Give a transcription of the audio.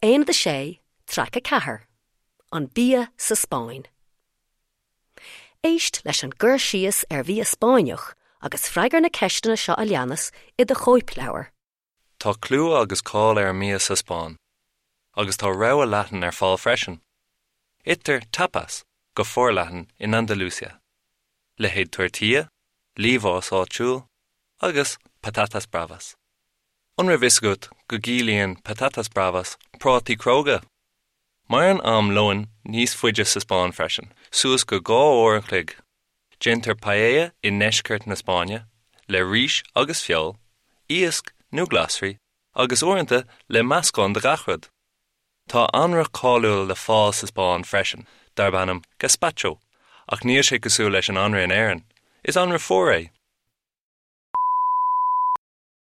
Aonad 6, Traic 4, An Bia sa Spáinn. Éist leis an gcur síos ar bhia Spáinneach agus freagair na ceisteanna seo a leanas i do chóipleabhar. Tá clú agus cáil ar an mbia sa Spáinn, agus tá rogha leathan ar fáil freisin. Itear tapas go forleathan in Andalusia, leithéid tortilla, liamhás áitiúil, agus patatas bravas. An raibh fhios agat go gciallaíonn patatas bravas prátaí cróga? Maireann am lóin níos faide sa Spáinn freisin, suas go 2 uair an chloig. Déantar paella i ndeisceart na Spáinne, le rís agus feoil, iasc nó glasraí, agus uaireanta le meascán de gach rud. Tá anraith cáiliúil le fáil sa Spáinn freisin, darb ainm gazpacho, ach níl sé cosúil leis an anraith in Éirinn, is anraith fuar é!